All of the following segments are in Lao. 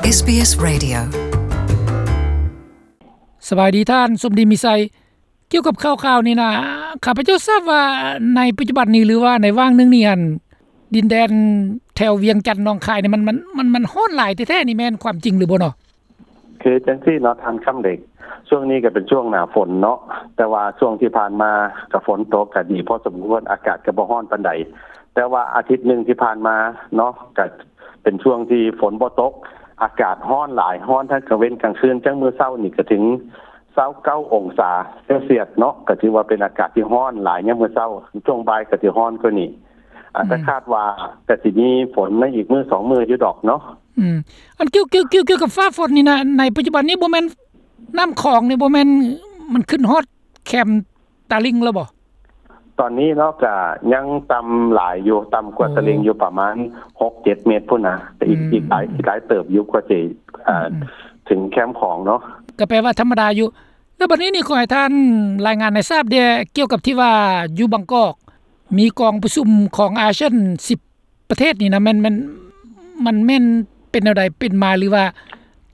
ເອສບີເອສ Radio. ສະບາຍດີທ່ານ ສົມດີ ມີໄຊ. ກ່ຽວກັບຂ່າວໆນີ້ນະ ຂ້າພະເຈົ້າຊາບວ່າໃນປັດຈຸບັນນີ້ ຫຼືວ່າໃນຫວ່າງໜຶ່ງນີ້ຫັ້ນ ດິນແດນແຖວວຽງຈັນ ໜອງຄາຍນີ້ ມັນ ມັນ ມັນ ມັນຮ້ອນຫຼາຍແທ້ໆ ນີ້ແມ່ນຄວາມຈິງຫຼືບໍ່ເນາະ? ຄືຈັ່ງຊີ້ເນາະທ່ານຄຳເດັກ, ຊ່ວງນີ້ກໍເປັນຊ່ວງໜ້າຝົນເນາະ, ແຕ່ວ່າຊ່ວງທີ່ຜ່ານມາກໍຝົນຕົກກໍດີພໍສົມຄວນ, ອາກາດກໍບໍ່ຮ້ອນປານໃດ. ແຕ່ວ່າອາທິດໜຶ່ງທີ່ຜ່ານມາເນາະ ກໍເປັນຊ່ວງທີ່ຝົນບໍ່ຕົກ, ອາກາດຮ້ອນຫຼາຍ, ຮ້ອນທັງກາງເວັນກາງຄືນ. ຈັ່ງມື້ເຊົ້ານີ້ກໍເຖິງຊາວເກົ້າອົງສາເຊວຊຽສເນາະ, ກໍຖືວ່າເປັນອາກາດທີ່ຮ້ອນຫຼາຍຍາມມື້ເຊົ້າ, ຊ່ວງບ່າຍກໍຊິຮ້ອນກວ່ານີ້. ອາດຈະ ອືມ ຄາດວ່າກໍຊິມີຝົນໃນອີກມື້ສອງມື້ຢູ່ດອກເນາະ. ອືມ ອັນກ່ຽວ ກ່ຽວ ກ່ຽວ ກ່ຽວກັບຟ້າຝົນນີ້ນະ ໃນປັດຈຸບັນນີ້ບໍ່ແມ່ນນ້ຳຂອງນີ້ ບໍ່ແມ່ນມັນຂຶ້ນຮອດແຄມຕາລິງແລ້ວບໍ່? ຕອນນີ້ເນາະ ກະຍັງຕ່ຳຫຼາຍຢູ່, ຕ່ຳກວ່າ ໂອ້ ຕາລິງຢູ່ປະມານຫົກເຈັດເມັດພຸ້ນນະ, ແຕ່ອີກ ອືມ ອີກຫຼາຍ ອີກຫຼາຍເຕີບຢູ່ກວ່າຊິ ອືມ ເອີ ອືມ ເຖິງແຄມຂອງເນາະ. ກໍແປວ່າທຳມະດາຢູ່. ແລ້ວບັດນີ້ນີ້ ຂໍໃຫ້ທ່ານລາຍງານໃຫ້ຊາບແດ່ ກ່ຽວກັບທີ່ວ່າຢູ່ບາງກອກ ມີກອງປະຊຸມຂອງອາຊຽນສິບປະເທດນີ້ນະ ແມ່ນ ແມ່ນ ມັນແມ່ນເປັນແນວໃດເປັນມາ ຫຼືວ່າ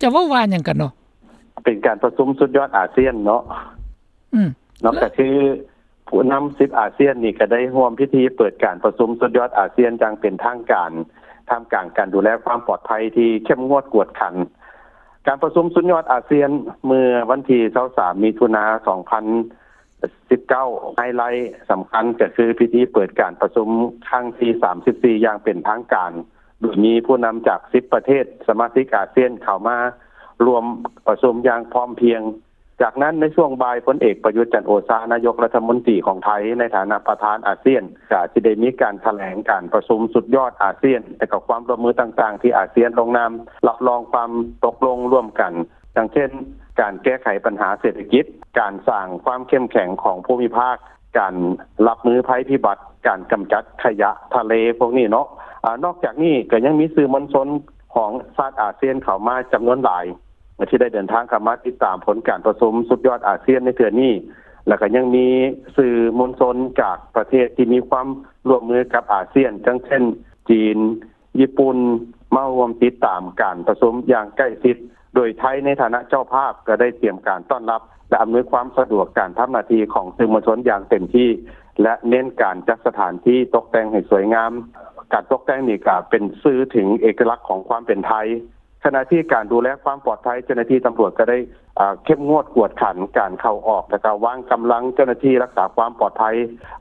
ຈະເວົ້າວ່າຫຍັງກັນເນາະ? ເປັນການປະຊຸມສຸດຍອດອາຊຽນເນາະ. ອືມ ເນາະ ກໍຄືຜູ້ນຳສິບອາຊຽນນີ້ກໍໄດ້ຮ່ວມພິທີເປີດການປະຊຸມສຸດຍອດອາຊຽນຢ່າງເປັນທາງການ ທ່າມກາງການດູແລຄວາມປອດໄພທີ່ເຂັ້ມງວດກວດຂັນ. ການປະຊຸມສຸດຍອດອາຊຽນເມື່ອວັນທີຊາວສາມ ມິຖຸນາ ສອງພັນ ສິບເກົ້າ ໄຮໄລສຳຄັນກໍຄືພິທີເປີດການປະຊຸມຄັ້ງທີສາມສິບສີ່ ຢ່າງເປັນທາງການ, ໂດຍມີຜູ້ນຳຈາກສິບປະເທດສະມາຊິກອາຊຽນເຂົ້າມາຮ່ວມປະຊຸມຢ່າງພ້ອມພຽງ. ຈາກນັ້ນໃນຊ່ວງບ່າຍ ພົນເອກ ປະຍຸດ ຈັນໂອຊາ ນາຍົກລັດຖະມົນຕີຂອງໄທ ໃນຖານະປະທານອາຊຽນ ກໍຊິໄດ້ມີການຖະແຫຼງການປະຊຸມສຸດຍອດອາຊຽນ ແລະ ກໍຄວາມຮ່ວມມືຕ່າງໆ ທີ່ອາຊຽນລົງນາມ ຮັບຮອງຄວາມຕົກລົງຮ່ວມກັນ ດັ່ງເຊັ່ນ ການແກ້ໄຂບັນຫາເສດຖະກິດ, ການສ້າງຄວາມເຂັ້ມແຂງຂອງພູມິພາກ, ການຮັບມືໄພພິບັດ, ການກຳຈັດຂະຫຍະທະເລພວກນີ້ເນາະ. ອາ ນອກຈາກນີ້ກໍຍັງມີສື່ມວນຊົນຂອງຊາດອາຊຽນເຂົ້າມາຈຳນວນຫຼາຍ ທີ່ໄດ້ເດີນທາງເຂົ້າມາຕິດຕາມຜົນການປະຊຸມສຸດຍອດອາຊຽນໃນເທື່ອນີ້ ແລ້ວກໍຍັງມີສື່ມວນຊົນຈາກປະເທດທີ່ມີຄວາມຮ່ວມມືກັບອາຊຽນ ດັ່ງເຊັ່ນ ຈີນ, ຍີ່ປຸ່ນ ມາຮ່ວມຕິດຕາມການປະຊຸມຢ່າງໃກ້ຊິດ, ໂດຍໄທໃນຖານະເຈົ້າພາບກໍໄດ້ຕຽມການຕ້ອນຮັບ ແລະ ອຳນວຍຄວາມສະດວກການທຳໜ້າທີ່ຂອງສື່ມວນຊົນຢ່າງເຕັມທີ່ ແລະ ເນັ້ນການຈັດສະຖານທີ່ຕົກແຕ່ງໃຫ້ສວຍງາມ. ການຕົກແຕ່ງນີ້ກໍເປັນສື່ເຖິງເອກະລັກຂອງຄວາມເປັນໄທ. ຂະນະທີ່ການດູແລຄວາມປອດໄພ ເຈົ້າໜ້າທີ່ຕຳຫຼວດກໍໄດ້ ເອີ ເຂັ້ມງວດກວດຂັນການເຂົ້າອອກ ແລະ ກໍວາງກຳລັງເຈົ້າໜ້າທີ່ລັກສາຄວາມປອດໄພ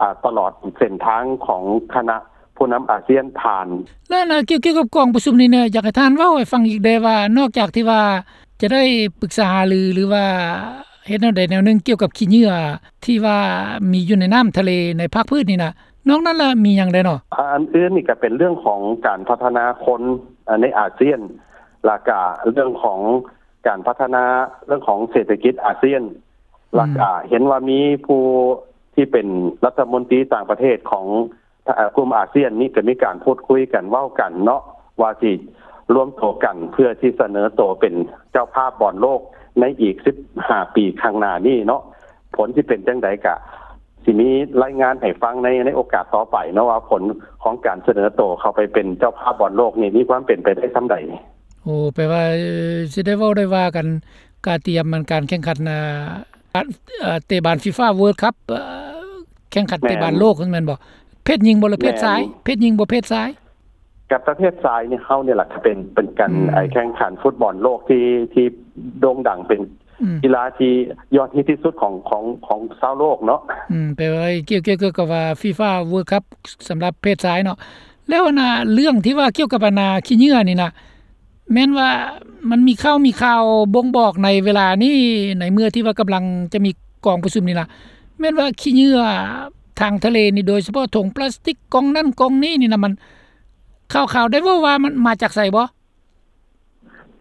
ອາ ຕະຫຼອດເສັ້ນທາງຂອງຄະນະ ຜູ້ນຳອາຊຽນຜ່ານ. ແລ້ວນະ ກ່ຽວ ກ່ຽວກັບກອງປະຊຸມນີ້ນະ ຢາກໃຫ້ທ່ານເວົ້າໃຫ້ຟັງອີກແດ່ວ່າ ນອກຈາກທີ່ວ່າຈະໄດ້ປຶກສາຫາລື ຫຼືວ່າເຮັດແນວໃດແນວໜຶ່ງກ່ຽວກັບຂີ້ເຫຍື້ອທີ່ວ່າມີຢູ່ໃນນ້ຳທະເລໃນພາກພື້ນນີ້ນະ ນອກນັ້ນລະມີຫຍັງແດ່ເນາະ? ອາ ອັນອື່ນນີ້ກໍເປັນເລື່ອງຂອງການພັດທະນາຄົນ ອາ ໃນອາຊຽນ ແລ້ວກະເລື່ອງຂອງການພັດທະນາເລື່ອງຂອງເສດຖະກິດອາຊຽນ ອືມ ແລ້ວກະເຫັນວ່າມີຜູ້ທີ່ເປັນລັດຖະມົນຕີຕ່າງປະເທດຂອງ ເອີ ກຸ່ມອາຊຽນນີ້ກໍມີການພູດຄຸຍກັນເວົ້າກັນເນາະ ວ່າຊິລວມໂຕກັນເພື່ອທີ່ສະເໜີໂຕເປັນເຈົ້າພາບບອນໂລກໃນອີກສິບຫ້າປີຂ້າງໜ້ານີ້ເນາະ. ຜົນຊິເປັນຈັ່ງໃດກະຊິມີລາຍງານໃຫ້ຟັງໃນ ໃນໂອກາດຕໍ່ໄປເນາະ ວ່າຜົນຂອງການສະເໜີໂຕເຂົ້າໄປເປັນເຈົ້າພາບບອນໂລກນີ້ມີຄວາມເປັນໄປໄດ້ສ່ຳໃດ. ໂອ້ ແປວ່າ ເອີ ຊິໄດ້ເວົ້າໄດ້ວ່າກັນ ກະຕຽມມັນການແຂ່ງຂັນ ອາ ການ ເອີ ເຕະບານ FIFA World Cup ເອີ ແຂ່ງຂັນເຕະບານໂລກ ແມ່ນບໍ່? ເພດຍິງບໍ່ ຫຼືເພດຊາຍ? ແມ່ນ ເພດຍິງບໍ່ ເພດຊາຍ? ກັບປະເພດຊາຍນີ້ ເຮົານີ້ລະກະເປັນ ເປັນການ ອືມ ແຂ່ງຂັນຟຸດບອນໂລກທີ່ ທີ່ໂດ່ງດັງ ເປັນ ອືມ ກິລາທີ່ຍອດຮິດທີ່ສຸດຂອງ ຂອງ ຂອງຊາວໂລກເນາະ. ອືມ ແປວ່າກ່ຽວ ກ່ຽວກັບວ່າ FIFA World Cup ສຳລັບເພດຊາຍເນາະ. ແລ້ວອັນນ່າ ເລື່ອງທີ່ວ່າກ່ຽວກັບອັນນ່າ ຂີ້ເຫຍື້ອນີ້ນະ ແມ່ນວ່າມັນມີຂ່າວ ມີຂ່າວບົ່ງບອກໃນເວລານີ້ ໃນເມື່ອທີ່ວ່າກຳລັງຈະມີກອງປະຊຸມນີ້ນະ ແມ່ນວ່າຂີ້ເຫຍື້ອທາງທະເລນີ້ ໂດຍສະເພາະຖົງປລາສຕິກ ກ່ອງນັ້ນກ່ອງນີ້ນີ້ນະ ມັນ ຂ່າວໆໄດ້ເວົ້າວ່າມັນມາຈາກໃສບໍ່?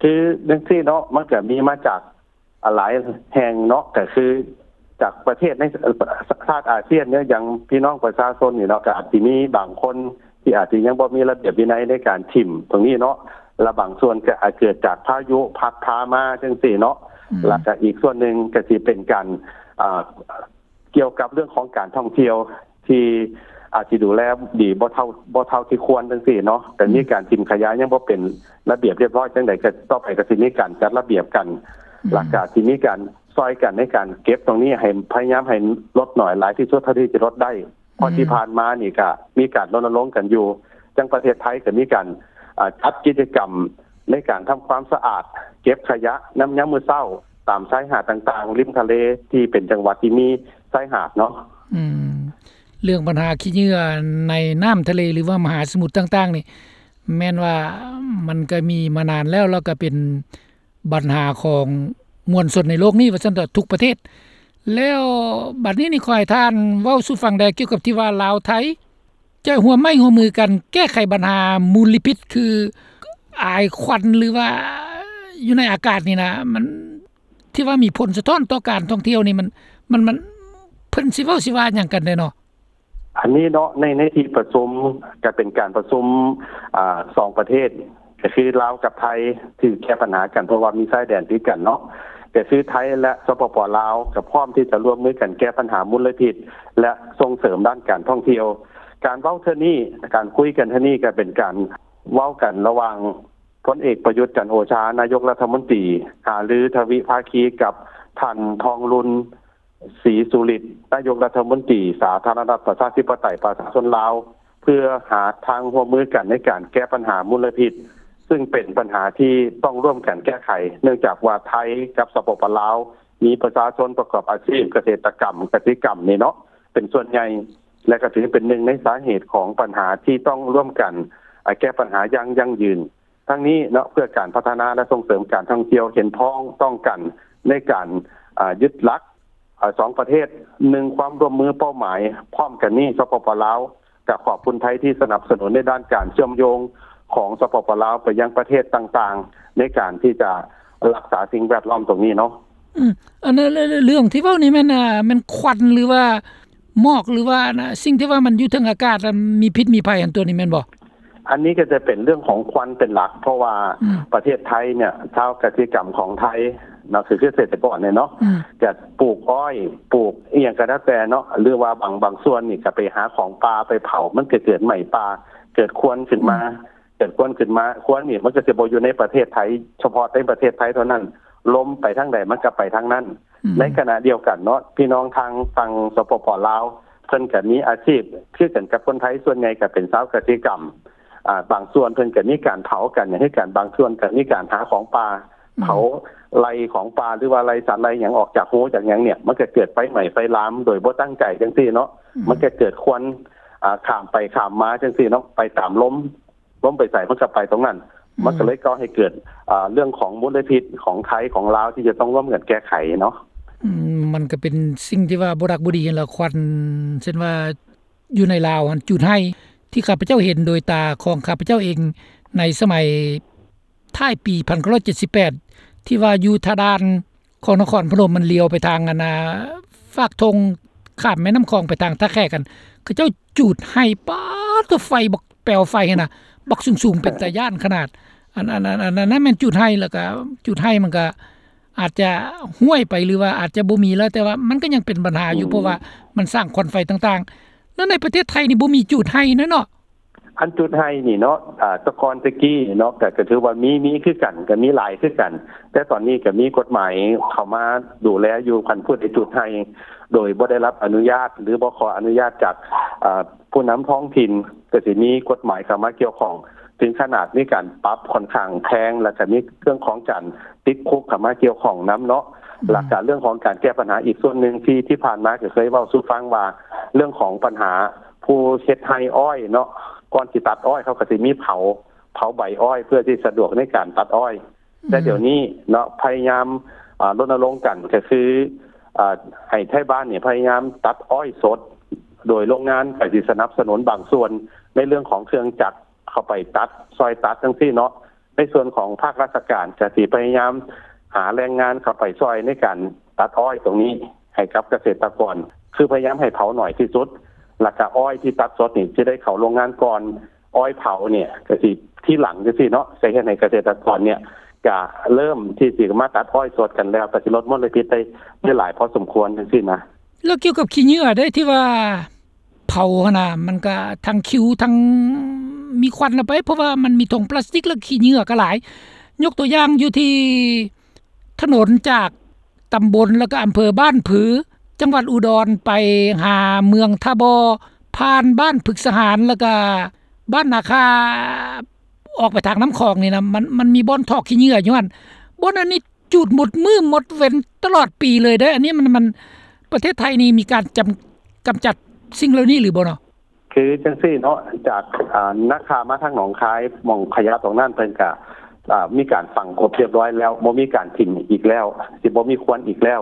ຄືຈັ່ງຊີ້ເນາະ ມັນກະມີມາຈາກ ອາ ຫຼາຍແຫ່ງເນາະ ກະຄືຈາກປະເທດໃນ ເອີ ຊາດອາຊຽນເນາະ ຢ່າງພີ່ນ້ອງປະຊາຊົນນີ້ເນາະ ກະອາດຊິມີບາງຄົນທີ່ອາດຊິຍັງບໍ່ມີລະບຽບວິໄນໃນການຖິ້ມຕົງນີ້ເນາະ ລະບາງສ່ວນກະອາດເກີດຈາກພາຍຸພັດພາມາຈັ່ງຊີ້ເນາະ ອືມ ລະກະອີກສ່ວນໜຶ່ງກະຊິເປັນການ ອາ ກ່ຽວກັບເລື່ອງຂອງການທ່ອງທ່ຽວທີ່ ອາດຊິດູແລດີບໍ່ເທົ່າ ບໍ່ເທົ່າທີ່ຄວນຈັ່ງຊີ້ເນາະ ກໍມີການຖິ້ມຂະຫຍະຍັງບໍ່ເປັນລະບຽບຮຽບຮ້ອຍຈັ່ງໃດ ກໍຕໍ່ໄປກໍຊິມີການຈັດລະບຽບກັນ ແລ້ວກໍຊິມີການຊ່ອຍກັນໃນການເກັບຕົງນີ້ ໃຫ້ພະຍາຍາມໃຫ້ລົດໜ້ອຍຫຼາຍທີ່ສຸດເທົ່າທີ່ຈະລົດໄດ້ ເພາະທີ່ຜ່ານມານີ້ກໍມີການລົນນະລົງກັນຢູ່ ຈັ່ງປະເທດໄທກໍມີການ ອາ ຈັດກິດຈະກຳໃນການທຳຄວາມສະອາດ ເກັບຂະຫຍະນຳຍາມມື້ເຊົ້າ ຕາມຊາຍຫາດຕ່າງໆ ລິມທະເລທີ່ເປັນຈັງຫວັດທີ່ມີຊາຍຫາດເນາະ. ອືມ ເລື່ອງບັນຫາຂີ້ເຫຍື້ອໃນນ້ຳທະເລ ຫຼືວ່າມະຫາສະໝຸດຕ່າງໆນີ້ ແມ່ນວ່າມັນກໍມີມານານແລ້ວ ແລ້ວກໍເປັນບັນຫາຂອງມວນຊົນໃນໂລກນີ້ວ່າຊັ້ນເຖາະ ທຸກປະເທດ. ແລ້ວບັດນີ້ນີ້ ຂໍໃຫ້ທ່ານເວົ້າສູ່ຟັງແດ່ ກ່ຽວກັບທີ່ວ່າລາວໄທຈະຮ່ວມໄມ້ຮ່ວມມືກັນແກ້ໄຂບັນຫາມົນລະພິດ ຄືອາຍຄວັນ ຫຼືວ່າຢູ່ໃນອາກາດນີ້ນະ ມັນ ທີ່ວ່າມີຜົນສະທ້ອນຕໍ່ການທ່ອງທ່ຽວນີ້ ມັນ ມັນ ມັນ ເພິ່ນຊິເວົ້າຊິວ່າຫຍັງກັນແດ່ເນາະ? ອັນນີ້ເນາະ ໃນ ໃນທີ່ປະຊຸມ ກໍເປັນການປະຊຸມ ອາ ສອງປະເທດ ກໍຄືລາວກັບໄທ ທີ່ແກ້ບັນຫາກັນ ເພາະວ່າມີຊາຍແດນຕິດກັນເນາະ ກໍຄືໄທ ແລະ ສປປ ລາວ ກໍພ້ອມທີ່ຈະຮ່ວມມືກັນແກ້ບັນຫາມົນລະພິດ ແລະ ສົ່ງເສີມດ້ານການທ່ອງທ່ຽວ. ການເວົ້າເທື່ອນີ້ ການຄຸຍກັນເທື່ອນີ້ ກໍເປັນການເວົ້າກັນລະຫວ່າງ ພົນເອກ ປະຍຸດ ຈັນໂອຊາ ນາຍົກລັດຖະມົນຕີ ຫາລືທະວິພາຄີກັບທ່ານ ທອງລຸນ ສີສຸລິດ ນາຍົກລັດຖະມົນຕີ ສາທາລະນະລັດ ປະຊາທິປະໄຕ ປະຊາຊົນລາວ ເພື່ອຫາທາງຮ່ວມມືກັນໃນການແກ້ບັນຫາມົນລະພິດ ຊຶ່ງເປັນບັນຫາທີ່ຕ້ອງຮ່ວມກັນແກ້ໄຂ ເນື່ອງຈາກວ່າໄທກັບ ສປປ ລາວ ມີປະຊາຊົນປະກອບອາຊີບກະເສດຕະກຳ ກະສິກຳນີ້ເນາະ ເປັນສ່ວນໃຫຍ່ ແລະ ກໍຖືເປັນໜຶ່ງໃນສາເຫດຂອງບັນຫາທີ່ຕ້ອງຮ່ວມກັນ ອາ ແກ້ບັນຫາຢ່າງຢັ້ງຢືນ. ທັງນີ້ເນາະ ເພື່ອການພັດທະນາ ແລະ ສົ່ງເສີມການທ່ອງທ່ຽວ ເຫັນພ້ອມຕ້ອງກັນໃນການ ອາ ຍຶດຫຼັກ ອາ ສອງປະເທດ ໜຶ່ງ ຄວາມຮ່ວມມືເປົ້າໝາຍພ້ອມກັນນີ້ ສປປ ລາວ ກໍຂອບຄຸນໄທທີ່ສະໜັບສະໜູນໃນດ້ານການເຊື່ອມໂຍງຂອງ ສປປ ລາວ ໄປຍັງປະເທດຕ່າງໆ ໃນການທີ່ຈະຮັກສາສິ່ງແວດລ້ອມຕົງນີ້ເນາະ. ອືມ ອັນນັ້ນ ເລື່ອງທີ່ເວົ້ານີ້ແມ່ນ ອາ ແມ່ນຄວັນ ຫຼືວ່າໝອກ ຫຼືວ່າ ອັນ ສິ່ງທີ່ວ່າມັນຢູ່ເທິງອາກາດ ອາ ມີພິດມີໄພ ອັນຕົວນີ້ແມ່ນບໍ່? ອັນນີ້ກໍຈະເປັນເລື່ອງຂອງຄວັນເປັນຫຼັກ ເພາະວ່າ ອືມ ປະເທດໄທເນຍ ຊາວກະສິກຳຂອງໄທເນາະ ຄື ຄືເກສດຕະກອນເນຍເນາະ ອືມ ຈະປູກອ້ອຍ ປູກອີ່ຫຍັງກໍແລ້ວແຕ່ເນາະ ຫຼືວ່າບາງ ບາງສ່ວນນີ້ກໍໄປຫາຂອງປ່າໄປເຜົາ ມັນກໍເກີດໄໝ້ປ່າ ເກີດຄວັນຂຶ້ນມາ ອືມ ເກີດຄວັນຂຶ້ນມາ ຄວັນນີ້ມັນກໍຈະບໍ່ຢູ່ໃນປະເທດໄທ ສະເພາະໃນປະເທດໄທເທົ່ານັ້ນ ລົມໄປທາງໃດມັນກໍໄປທາງນັ້ນ ອືມ ໃນຂະນະດຽວກັນເນາະ ພີ່ນ້ອງທາງຝັ່ງ ສປປ ລາວ ເພິ່ນກໍມີອາຊີບຄືກັນກັບຄົນໄທ ສ່ວນໃຫຍ່ກໍເປັນຊາວກະສິກຳ ອາ ບາງສ່ວນເພິ່ນກໍມີການເຜົາກັນຫຍັງຄືກັນ ບາງສ່ວນກໍມີການຫາຂອງປ່າ ອືມ ເຜົາໄລ່ຂອງປ່າ ຫຼືວ່າໄລ່ສັດໄລ່ຫຍັງອອກຈາກຮູຈາກຫຍັງເນຍ ມັນກໍເກີດໄຟໄໝ້ໄຟລາມໂດຍບໍ່ຕັ້ງໃຈຈັ່ງຊີ້ເນາະ ອືມ ມັນກໍເກີດຄວັນ ອາ ຂ້າມໄປຂ້າມມາຈັ່ງຊີ້ເນາະ ໄປຕາມລົມ ລົມໄປໃສມັນກໍໄປຕົງນັ້ນ ອືມ ມັນກໍເລີຍກໍ່ໃຫ້ເກີດ ອາ ເລື່ອງຂອງມົນລະພິດຂອງໄທຂອງລາວທີ່ຈະຕ້ອງຮ່ວມກັນແກ້ໄຂເນາະ. ອືມ ມັນກໍເປັນສິ່ງທີ່ວ່າບໍ່ດັກບໍ່ດີຫັ້ນລະ ຄວັນ ເຊັ່ນວ່າຢູ່ໃນລາວຫັ້ນ ຈູດໄຮ່ ທີ່ຂ້າພະເຈົ້າເຫັນໂດຍຕາຂອງຂ້າພະເຈົ້າເອງ ໃນສະໄໝທ້າຍປີພັນເກົ້າຮ້ອຍເຈັດສິບແປດ ທີ່ວ່າຢູ່ທ່າດ່ານ ຂອງນະຄອນພະນົມ ມັນລ້ຽວໄປທາງ ອັນນ່າ ຟາກທົ່ງຂ້າມແມ່ນ້ຳຂອງໄປທາງທ່າແຂກ ອັນ ເຂົາເຈົ້າຈູດໄຮ່ ປາດໂທ້ ໄຟບັກ ແປວໄຟຫັ້ນນະ ບັກສູງໆ ເປັນຕາຢ້ານຂະໜາດ ອັນ ອັນ ອັນ ອັນນັ້ນແມ່ນຈູດໄຮ່ ແລ້ວກະຈູດໄຮ່ມັນກະອາດຈະຫ້ວຍໄປ ຫຼືວ່າອາດຈະບໍ່ມີແລ້ວ ແຕ່ວ່າມັນກະຍັງເປັນບັນຫາຢູ່ ອືມ ເພາະວ່າມັນສ້າງຄວັນໄຟຕ່າງໆ ແລ້ວໃນປະເທດໄທນີ້ບໍ່ມີຈູດໄຮ່ນະເນາະ. ອັນຈູດໄຮ່ນີ້ເນາະ ອາ ແຕ່ກ່ອນແຕ່ກີ້ເນາະ ກະ ກະຖືວ່າມີ ມີຄືກັນ ກະມີຫຼາຍຄືກັນ ແຕ່ຕອນນີ້ກະມີກົດໝາຍເຂົ້າມາດູແລຢູ່ ຄັນຜູ້ໃດຈູດໄຮ່ໂດຍບໍ່ໄດ້ຮັບອະນຸຍາດ ຫຼືບໍ່ຂໍອະນຸຍາດຈາກ ອາ ຜູ້ນຳທ້ອງຖິ່ນ ກະຊິມີກົດໝາຍເຂົ້າມາກ່ຽວຂ້ອງ ເຖິງຂະໜາດມີການປັບຂ້ອນຂ້າງແພງ ແລ້ວກະມີເລື່ອງຂອງການຕິດຄຸກເຂົ້າມາກ່ຽວຂ້ອງນຳເນາະ ອືມ ແລ້ວກະເລື່ອງຂອງການແກ້ບັນຫາອີກສ່ວນໜຶ່ງ ທີ່ ທີ່ຜ່ານມາກະເຄີຍເວົ້າສູ່ຟັງວ່າ ເລື່ອງຂອງບັນຫາ ຜູ້ເຮັດໄຮ່ອ້ອຍເນາະ ກ່ອນຊິຕັດອ້ອຍ ເຂົາກໍຊິມີເຜົາ ເຜົາໃບອ້ອຍ ເພື່ອທີ່ສະດວກໃນການຕັດອ້ອຍ ອືມ ແຕ່ດຽວນີ້ເນາະ ພະຍາຍາມ ອາ ລົນນະລົງກັນ ກໍຄື ອາ ໃຫ້ໄທບ້ານນີ້ພະຍາຍາມຕັດອ້ອຍສົດ ໂດຍໂຮງງານກໍຊິສະໜັບສະໜູນບາງສ່ວນ ໃນເລື່ອງຂອງເຄື່ອງຈັກເຂົ້າໄປຕັດ ຊ່ອຍຕັດຈັ່ງຊີ້ເນາະ ໃນສ່ວນຂອງພາກລາຊະການ ກໍຊິພະຍາຍາມຫາແຮງງານເຂົ້າໄປຊ່ອຍໃນການຕັດອ້ອຍຕົງນີ້ໃຫ້ກັບກະເສດຕະກອນ ຄືພະຍາຍາມໃຫ້ເຜົາໜ້ອຍທີ່ສຸດ ແລ້ວກະອ້ອຍທີ່ຕັດສົດນີ້ຊິໄດ້ເຂົ້າໂຮງງານກ່ອນ ອ້ອຍເຜົານີ້ກະຊິທີຫຼັງຈັ່ງຊີ້ເນາະ ກະເຮັດໃຫ້ກະເສດຕະກອນນີ້ກະເລີ່ມທີ່ຊິມາຕັດອ້ອຍສົດກັນແລ້ວ ກະຊິລົດມົນລະພິດໄດ້ ໄດ້ຫຼາຍພໍສົມຄວນຈັ່ງຊີ້ນະ. ແລ້ວກ່ຽວກັບຂີ້ເຫຍື້ອເດ້ ທີ່ວ່າ ເຂົາຫັ້ນນະ ມັນກະທັງຂິວ ທັງມີຄວັນລະໄປ ເພາະວ່າມັນມີຖົງພລາສຕິກ ແລະ ຂີ້ເຫຍື້ອກະຫຼາຍ. ຍົກຕົວຢ່າງຢູ່ທີ່ຖະໜົນຈາກຕຳບົນ ແລະ ກະອຳເພີບ້ານຜື ຈັງຫວັດອຸດອນ ໄປຫາເມືອງທ່າບໍ່ ຜ່ານບ້ານພຶກສະຫານ ແລະ ກະບ້ານນາຄາ ອອກໄປທາງນ້ຳຂອງນີ້ນະ ມັນ ມັນມີບ່ອນຖອກຂີ້ເຫຍື້ອຢູ່ຫັ້ນ. ບ່ອນອັນນີ້ ຈູດໝົດມື້ໝົດເວັນຕະຫຼອດປີເລີຍເດ້. ອັນນີ້ມັນ ມັນ ປະເທດໄທນີ້ມີການຈຳ ກຳຈັດສິ່ງເຫຼົ່ານີ້ຫຼືບໍ່ເນາະ? ຄືຈັ່ງຊີ້ເນາະ ຈາກ ອ່າ ນາຄາມາທາງໜອງຄາຍ ໝ່ອງຂະຫຍະຕົງນັ້ນເພິ່ນກະ ອ່າ ມີການຝັງກົບຮຽບຮ້ອຍແລ້ວ ບໍ່ມີການຖິ້ມອີກແລ້ວ ຊິບໍ່ມີຄວັນອີກແລ້ວ.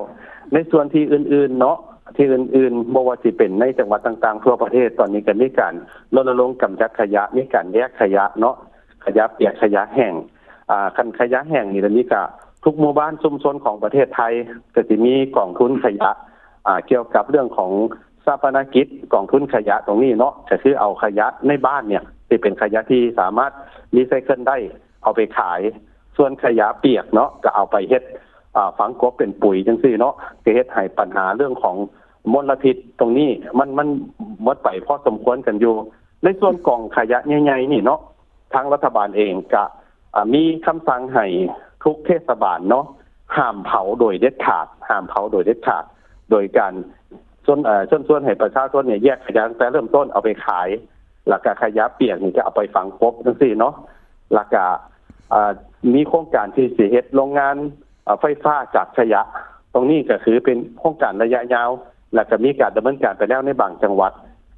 ໃນສ່ວນທີ່ອື່ນໆເນາະ ທີ່ອື່ນໆ ບໍ່ວ່າຊິເປັນໃນຈັງຫວັດຕ່າງໆທົ່ວປະເທດ ຕອນນີ້ກະມີການລົນນະລົງກຳຈັດຂະຫຍະ ມີການແຍກຂະຫຍະເນາະ ຂະຫຍະປຽກ ຂະຫຍະແຫ້ງ. ອ່າ ຄັນຂະຫຍະແຫ້ງນີ້ ດຽວນີ້ກະທຸກໝູ່ບ້ານຊຸມຊົນຂອງປະເທດໄທ ກະຊິມີກອງທຶນຂະຫຍະ ອ່າ ກ່ຽວກັບເລື່ອງຂອງຊາປະນະກິດ ກອງທຶນຂະຫຍະຕົງນີ້ເນາະ ກະຄືເອົາຂະຫຍະໃນບ້ານເນ່ຍ ທີ່ເປັນຂະຫຍະທີ່ສາມາດຣີໄຊເຄິນໄດ້ ເອົາໄປຂາຍ. ສ່ວນຂະຫຍະປຽກເນາະ ກະເອົາໄປເຮັດ ອ່າ ຝັງກົບເປັນປຸຍຈັ່ງຊີ້ເນາະ ກະເຮັດໃຫ້ບັນຫາເລື່ອງຂອງມົນລະພິດຕົງນີ້ ມັນ ມັນໝົດໄປພໍສົມຄວນກັນຢູ່. ໃນສ່ວນກອງຂະຫຍະໃຫຍ່ໆນີ້ເນາະ ທາງລັດຖະບານເອງກະ ອ່າ ມີຄຳສັ່ງໃຫ້ທຸກເທດສະບານເນາະ ຫ້າມເຜົາໂດຍເດັດຂາດ ຫ້າມເຜົາໂດຍເດັດຂາດ ໂດຍການເຊີນ ເອີ ເຊີນຊວນໃຫ້ປະຊາຊົນເນ່ຍ ແຍກຂະຫຍະຕັ້ງແຕ່ເລີ່ມຕົ້ນເອົາໄປຂາຍ ແລ້ວກະຂະຫຍະປຽກນີ້ກະເອົາໄປຝັງກົບຈັ່ງຊີ້ເນາະ. ແລ້ວກະ ອ່າ ມີໂຄງການທີ່ຊິເຮັດໂຮງງານ ເອີ ໄຟຟ້າຈາກຂະຫຍະ ຕົງນີ້ກະຄືເປັນໂຄງການໄລຍະຍາວ ແລ້ວກະມີການດຳເນີນການໄປແລ້ວໃນບາງຈັງຫວັດ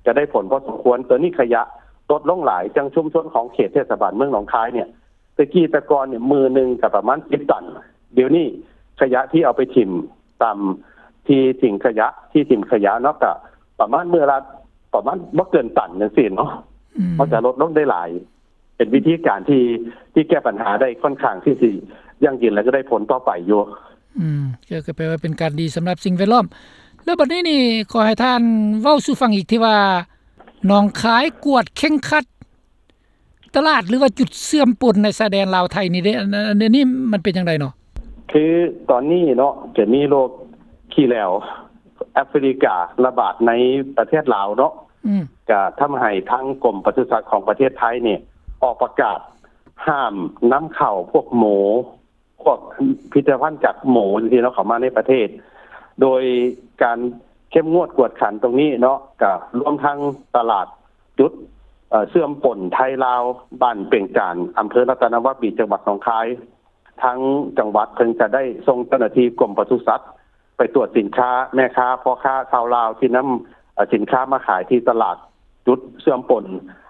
ກະໄດ້ຜົນພໍສົມຄວນ. ຕົວນີ້ຂະຫຍະລົດລົງຫຼາຍ ຈັ່ງຊຸມຊົນຂອງເຂດເທດສະບານເມືອງໜອງຄາຍເນ່ຍ ແຕ່ກີ້ແຕ່ກ່ອນນີ້ ມື້ໜຶ່ງກະປະມານສິບຕັນ ດຽວນີ້ຂະຫຍະທີ່ເອົາໄປຖິ້ມຕາມທີ່ຖິ້ມຂະຫຍະ ທີ່ຖິ້ມຂະຫຍະເນາະ ກະປະມານມື້ລະ ປະມານບໍ່ເກີນຕັນຈັ່ງຊີ້ເນາະ. ອືມ ມັນກະລົດລົງໄດ້ຫຼາຍ ເປັນວິທີການທີ່ ທີ່ແກ້ບັນຫາໄດ້ຄ່ອນຂ້າງທີ່ຊິຢັ້ງຢືນ ແລະ ກະໄດ້ຜົນຕໍ່ໄປຢູ່. ອືມ ກະ ກະແປວ່າເປັນການດີສຳລັບສິ່ງແວດລ້ອມ. ແລ້ວບັດນີ້ນີ້ ຂໍໃຫ້ທ່ານເວົ້າສູ່ຟັງອີກ ທີ່ວ່າໜອງຄາຍກວດເຄັ່ງຄັດ ຕະຫຼາດ ຫຼືວ່າຈຸດເຊື່ອມປົນໃນຊາຍແດນລາວໄທນີ້ເດ້ ອັນ ອັນນີ້ມັນເປັນຈັ່ງໃດເນາະ? ຄືຕອນນີ້ເນາະ ຈະມີໂລກຂີ້ແຫຼວແອຟຣິກາລະບາດໃນປະເທດລາວເນາະ ອືມ ກະທຳໃຫ້ທາງກົມປະສຸສັດຂອງປະເທດໄທນີ້ ອອກປະກາດຫ້າມນຳເຂົ້າພວກໝູ ພວກຜະລິດຕະພັນຈາກໝູຈັ່ງຊີ້ເນາະ ເຂົ້າມາໃນປະເທດ ໂດຍການເຂັ້ມງວດກວດຂັນຕົງນີ້ເນາະ ກະລວມທັງຕະຫຼາດຈຸດ ເອີ ເຊື່ອມປົນໄທລາວ ບ້ານເປັງຈານ ອຳເພີລັດຕະນະວາປີ ຈັງຫວັດໜອງຄາຍ. ທາງຈັງຫວັດເພິ່ນກະໄດ້ສົ່ງເຈົ້າໜ້າທີ່ກົມປະສຸສັດ ໄປກວດສິນຄ້າ ແມ່ຄ້າ ພໍ່ຄ້າຊາວລາວທີ່ນຳ ເອີ ສິນຄ້າມາຂາຍທີ່ຕະຫຼາດຈຸດເຊື່ອມປົນ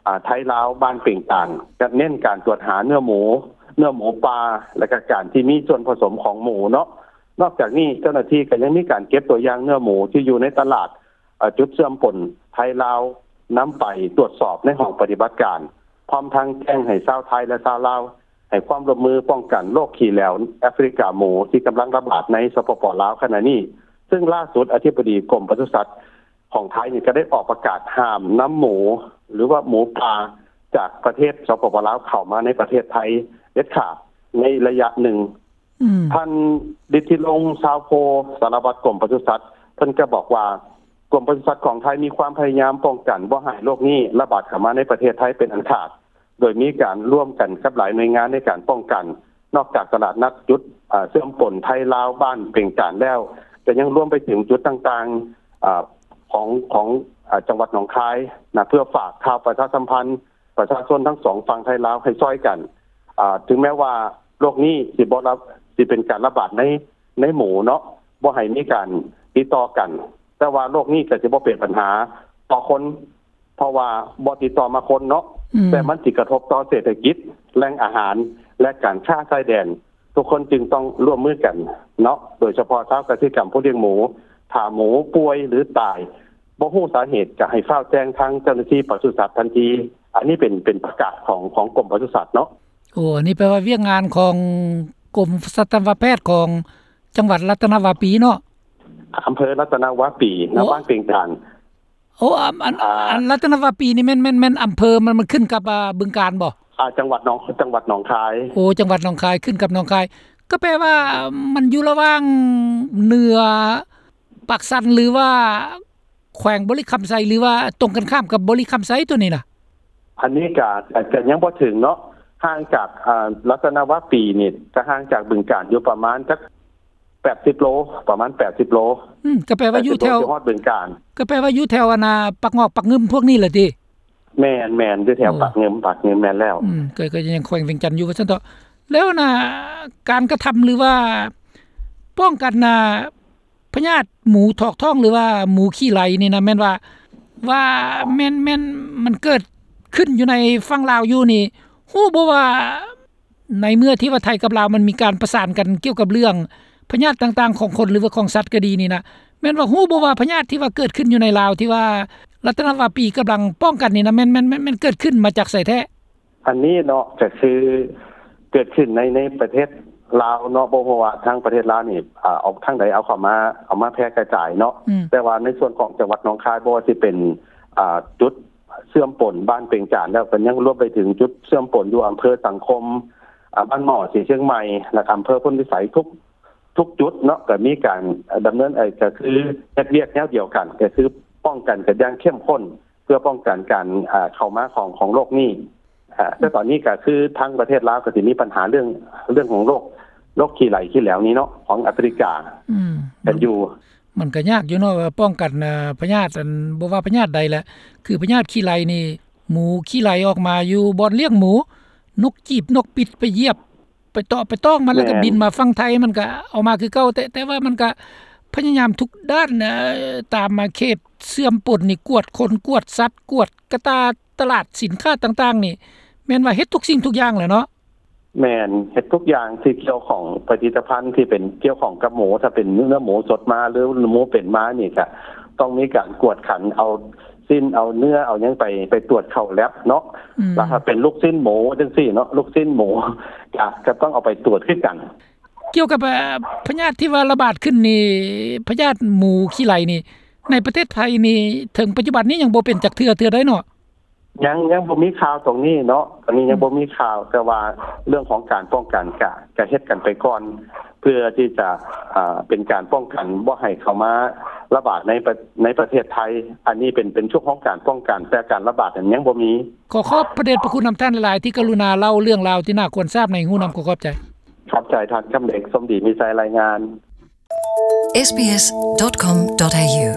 ອາ ໄທລາວ ບ້ານເປັງຈານ ກະເນັ້ນການກວດຫາເນື້ອໝູ ເນື້ອໝູປ່າ ແລະ ກະການທີ່ມີສ່ວນຜະສົມຂອງໝູເນາະ. ນອກຈາກນີ້ ເຈົ້າໜ້າທີ່ກະຍັງມີການເກັບຕົວຢ່າງເນື້ອໝູທີ່ຢູ່ໃນຕະຫຼາດ ເອີ ຈຸດເຊື່ອມປົນໄທລາວ ນຳໄປກວດສອບໃນຫ້ອງປະຕິບັດການ ພ້ອມທັງແຈ້ງໃຫ້ຊາວໄທ ແລະ ຊາວລາວ ໃຫ້ຄວາມຮ່ວມມືປ້ອງກັນໂລກຂີ້ແຫຼວແອຟຣິກາໝູ ທີ່ກຳລັງລະບາດໃນ ສປປ ລາວ ຂະນະນີ້. ເຊິ່ງລ່າສຸດ ອະທິບໍດີກົມປະສຸສັດຂອງໄທນີ້ ກະໄດ້ອອກປະກາດຫ້າມນຳໝູ ຫຼືວ່າໝູປ່າຈາກປະເທດ ສປປ ລາວ ເຂົ້າມາໃນປະເທດໄທເດັດຂາດໃນໄລຍະໜຶ່ງ. ອືມ ທ່ານ ລິດທິລົງ ຊາວໂພ ສາລະວັດກົມປະສຸສັດ ເພິ່ນກະບອກວ່າ ກົມປະສຸສັດຂອງໄທມີຄວາມພະຍາຍາມປ້ອງກັນບໍ່ໃຫ້ໂລກນີ້ລະບາດເຂົ້າມາໃນປະເທດໄທເປັນອັນຂາດ ໂດຍມີການຮ່ວມກັນກັບຫຼາຍໜ່ວຍງານໃນການປ້ອງກັນ. ນອກຈາກຕະຫຼາດນັດຈຸດ ອາ ເຊື່ອມປົນໄທລາວ ບ້ານເປັງຈານແລ້ວ ກະຍັງລວມໄປເຖິງຈຸດຕ່າງໆ ອາ ຂອງ ຂອງ ອາ ຈັງຫວັດໜອງຄາຍນະ ເພື່ອຝາກຂ່າວປະຊາສຳພັນ ປະຊາຊົນທັງສອງຝັ່ງໄທລາວໃຫ້ຊ່ອຍກັນ ເຖິງແມ້ວ່າໂລກນີ້ຊິບໍ່ລະ ຊິເປັນການລະບາດໃນ ໃນໝູເນາະ ບໍ່ໃຫ້ມີການຕິດຕໍ່ກັນ ແຕ່ວ່າໂລກນີ້ກະຊິບໍ່ເປັນບັນຫາຕໍ່ຄົນ ເພາະວ່າບໍ່ຕິດຕໍ່ມາຄົນເນາະ ອືມ ແຕ່ມັນຊິກະທົບຕໍ່ເສດຖະກິດ ແຫຼ່ງອາຫານ ແລະ ການຄ້າຊາຍແດນ. ທຸກຄົນຈຶ່ງຕ້ອງຮ່ວມມືກັນເນາະ ໂດຍສະເພາະຊາວກະສິກຳຜູ້ລ້ຽງໝູ ຖ້າໝູປ່ວຍ ຫຼື ຕາຍ ບໍ່ຮູ້ສາເຫດ ກະໃຫ້ຟ້າວແຈ້ງທາງເຈົ້າໜ້າທີ່ປະສຸສັດທັນທີ. ອັນນີ້ເປັນ ເປັນປະກາດຂອງ ຂອງກົມປະສຸສັດເນາະ. ໂອ້ ອັນນີ້ແປວ່າວຽກງານຂອງກົມສັດຕະວະແພດຂອງຈັງຫວັດລັດຕະນະວາປີເນາະ? ອຳເພີລັດຕະນະວາປີ ໂອ້ ນະ ບ້ານເປັງຈານ. ໂອ້ ອັນ ອັນ ອ່າ ອັນລັດຕະນະວາປີນີ້ແມ່ນ ແມ່ນ ແມ່ນອຳເພີ ມັນ ມັນຂຶ້ນກັບ ອາ ບຶງການບໍ່? ອ່າ ຈັງຫວັດໜອງ ຈັງຫວັດໜອງຄາຍ. ໂອ້ ຈັງຫວັດໜອງຄາຍ ຂຶ້ນກັບໜອງຄາຍ ກະແປວ່າມັນຢູ່ລະຫວ່າງເໜືອ ປາກຊັນ ຫຼືວ່າ ແຂວງບໍລິຄຳໄຊ ຫຼືວ່າຕົງກັນຂ້າມກັບບໍລິຄຳໄຊໂຕນີ້ນະ? ອັນນີ້ກະ ກະ ກະຍັງບໍ່ເຖິງເນາະ ຫ່າງຈາກ ອາ ລັດຕະນະວາປີນີ້ ກະຫ່າງຈາກບຶງການຢູ່ປະມານຈັກ ແປດສິບໂລ ປະມານແປດສິບໂລ. ອືມ ກໍແປວ່າຢູ່ແຖວ ແປດສິບໂລ ຊິຮອດບຶງການ. ກໍແປວ່າຢູ່ແຖວອັນນ່າ ປາກງອກ ປາກງື່ມພວກນີ້ແຫຼະຕິ? ແມ່ນໆ ຢູ່ແຖວ ໂອ້ ປາກງື່ມ ປາກງື່ມ ແມ່ນແລ້ວ. ອືມ ກໍ ກໍຍັງແຂວງວຽງຈັນຢູ່ວ່າຊັ້ນເຖາະ. ແລ້ວນະ ການກະທຳ ຫຼືວ່າປ້ອງກັນນະ ພະຍາດໝູຖອກທ້ອງ ຫຼືວ່າໝູຂີ້ໄຫຼນີ້ນະ ແມ່ນວ່າ ວ່າແມ່ນ ແມ່ນມັນເກີດຂຶ້ນຢູ່ໃນຝັ່ງລາວຢູ່ນີ້ ຮູ້ບໍ່ວ່າ ໃນເມື່ອທີ່ວ່າໄທກັບລາວມັນມີການປະສານກັນກ່ຽວກັບເລື່ອງພະຍາດຕ່າງໆຂອງຄົນ ຫຼືວ່າຂອງສັດກໍດີນີ້ນະ ແມ່ນວ່າຮູ້ບໍ່ວ່າພະຍາດທີ່ວ່າເກີດຂຶ້ນຢູ່ໃນລາວ ທີ່ວ່າລັດຕະນະວາປີກຳລັງປ້ອງກັນນີ້ນະ ແມ່ນ ແມ່ນ ແມ່ນ ແມ່ນເກີດຂຶ້ນມາຈາກໃສແທ້? ອັນນີ້ເນາະ ກໍຄືເກີດຂຶ້ນໃນ ໃນປະເທດລາວເນາະ ບໍ່ຮູ້ວ່າທາງປະເທດລາວນີ້ ອາ ເອົາທາງໃດເອົາເຂົ້າມາ ເອົາມາແຜ່ກະຈາຍເນາະ ອືມ ແຕ່ວ່າໃນສ່ວນຂອງຈັງຫວັດໜອງຄາຍ ບໍ່ວ່າຊິເປັນ ອາ ຈຸດ ເຊື່ອມປົນບ້ານເປັງຈານ ແລ້ວກໍຍັງລວມໄປເຖິງຈຸດເຊື່ອມປົນຢູ່ອຳເພີສັງຄົມ ອາ ບ້ານໝໍ້ ສີຊຽງໃໝ່ ແລະ ອຳເພີໂພນພິໄສ ທຸກ ທຸກຈຸດເນາະ ກໍມີການດຳເນີນ ເອີ ກໍຄືເຮັດວຽກແນວດຽວກັນ ກໍຄືປ້ອງກັນກັນຢ່າງເຂັ້ມຂຸ້ນ ເພື່ອປ້ອງກັນການ ອາ ເຂົ້າມາຂອງ ຂອງໂລກນີ້ ອາ ແຕ່ຕອນນີ້ກໍຄືທາງປະເທດລາວກໍຊິມີບັນຫາເລື່ອງ ເລື່ອງຂອງໂລກ ໂລກຂີ້ໄຫຼຂີ້ແຫຼວນີ້ເນາະ ຂອງອາຟຣິກາ ອືມ ກັນຢູ່. ມັນກໍຍາກຢູ່ເນາະ ວ່າປ້ອງກັນ ອາ ພະຍາດ ອັນ ບໍ່ວ່າພະຍາດໃດແຫຼະ ຄືພະຍາດຂີ້ໄຫຼນີ້ ໝູຂີ້ໄຫຼອອກມາຢູ່ບ່ອນລ້ຽງໝູ ນົກຈີບນົກປິດໄປຢຽບ ໄປເຕາະໄປຕ້ອງມັນ ແລ້ວກໍ ແມ່ນ ບິນມາຝັ່ງໄທ ມັນກໍເອົາມາຄືເກົ່າ ແຕ່ ແຕ່ວ່າມັນກໍພະຍາຍາມທຸກດ້ານ ເອີ ຕາມມາເຂດເຊື່ອມປົນນີ້ ກວດຄົນ ກວດສັດ ກວດກະຕ່າ ຕະຫຼາດສິນຄ້າຕ່າງໆນີ້ ແມ່ນວ່າເຮັດທຸກສິ່ງທຸກຢ່າງແຫຼະເນາະ? ແມ່ນ ເຮັດທຸກຢ່າງທີ່ກ່ຽວຂ້ອງ ຜະລິດຕະພັນທີ່ເປັນກ່ຽວຂ້ອງກັບໝູ ຖ້າເປັນເນື້ອໝູສົດມາ ຫຼື ໝູເປັນມານີ້ ກະຕ້ອງມີການກວດຂັນ ເອົາຊີ້ນ ເອົາເນື້ອ ເອົາຫຍັງໄປ ໄປຕວດເຂົ້າແລັບເນາະ ອືມ ແລ້ວຖ້າເປັນລູກຊີ້ນໝູຈັ່ງຊີ້ເນາະ ລູກຊີ້ນໝູ ກະ ກະຕ້ອງເອົາໄປຕວດຄືກັນ. ກ່ຽວກັບ ເອີ ພະຍາດທີ່ວ່າລະບາດຂຶ້ນນີ້ ພະຍາດໝູຂີ້ໄຫຼນີ້ ໃນປະເທດໄທນີ້ ເຖິງປັດຈຸບັນນີ້ຍັງບໍ່ເປັນຈັກເທື່ອ ເທື່ອໃດເນາະ? ຍັງ ຍັງບໍ່ມີຂ່າວຕົງນີ້ເນາະ ຕອນນີ້ຍັງ ອືມ ບໍ່ມີຂ່າວ ແຕ່ວ່າເລື່ອງຂອງການປ້ອງກັນກະ ກະເຮັດກັນໄປກ່ອນ ເພື່ອທີ່ຈະ ອາ ເປັນການປ້ອງກັນບໍ່ໃຫ້ເຂົ້າມາລະບາດໃນປະ ໃນປະເທດໄທ ອັນນີ້ເປັນ ເປັນຊ່ວງຂອງການປ້ອງກັນ ແຕ່ການລະບາດນັ້ນຍັງບໍ່ມີ. ຂໍຂອບພະເດດພະຄຸນນຳທ່ານຫຼາຍໆ ທີ່ກະລຸນາເລົ່າເລື່ອງລາວທີ່ໜ້າຄວນຊາບໃຫ້ຮູ້ນຳ. ຂໍຂອບໃຈ. ຂອບໃຈທ່ານຄຳເດັກ ສົມດີມີໄຊ ລາຍງານ. ເອສບີເອສ ດອດ ຄອມ ດອດ ເອຢູ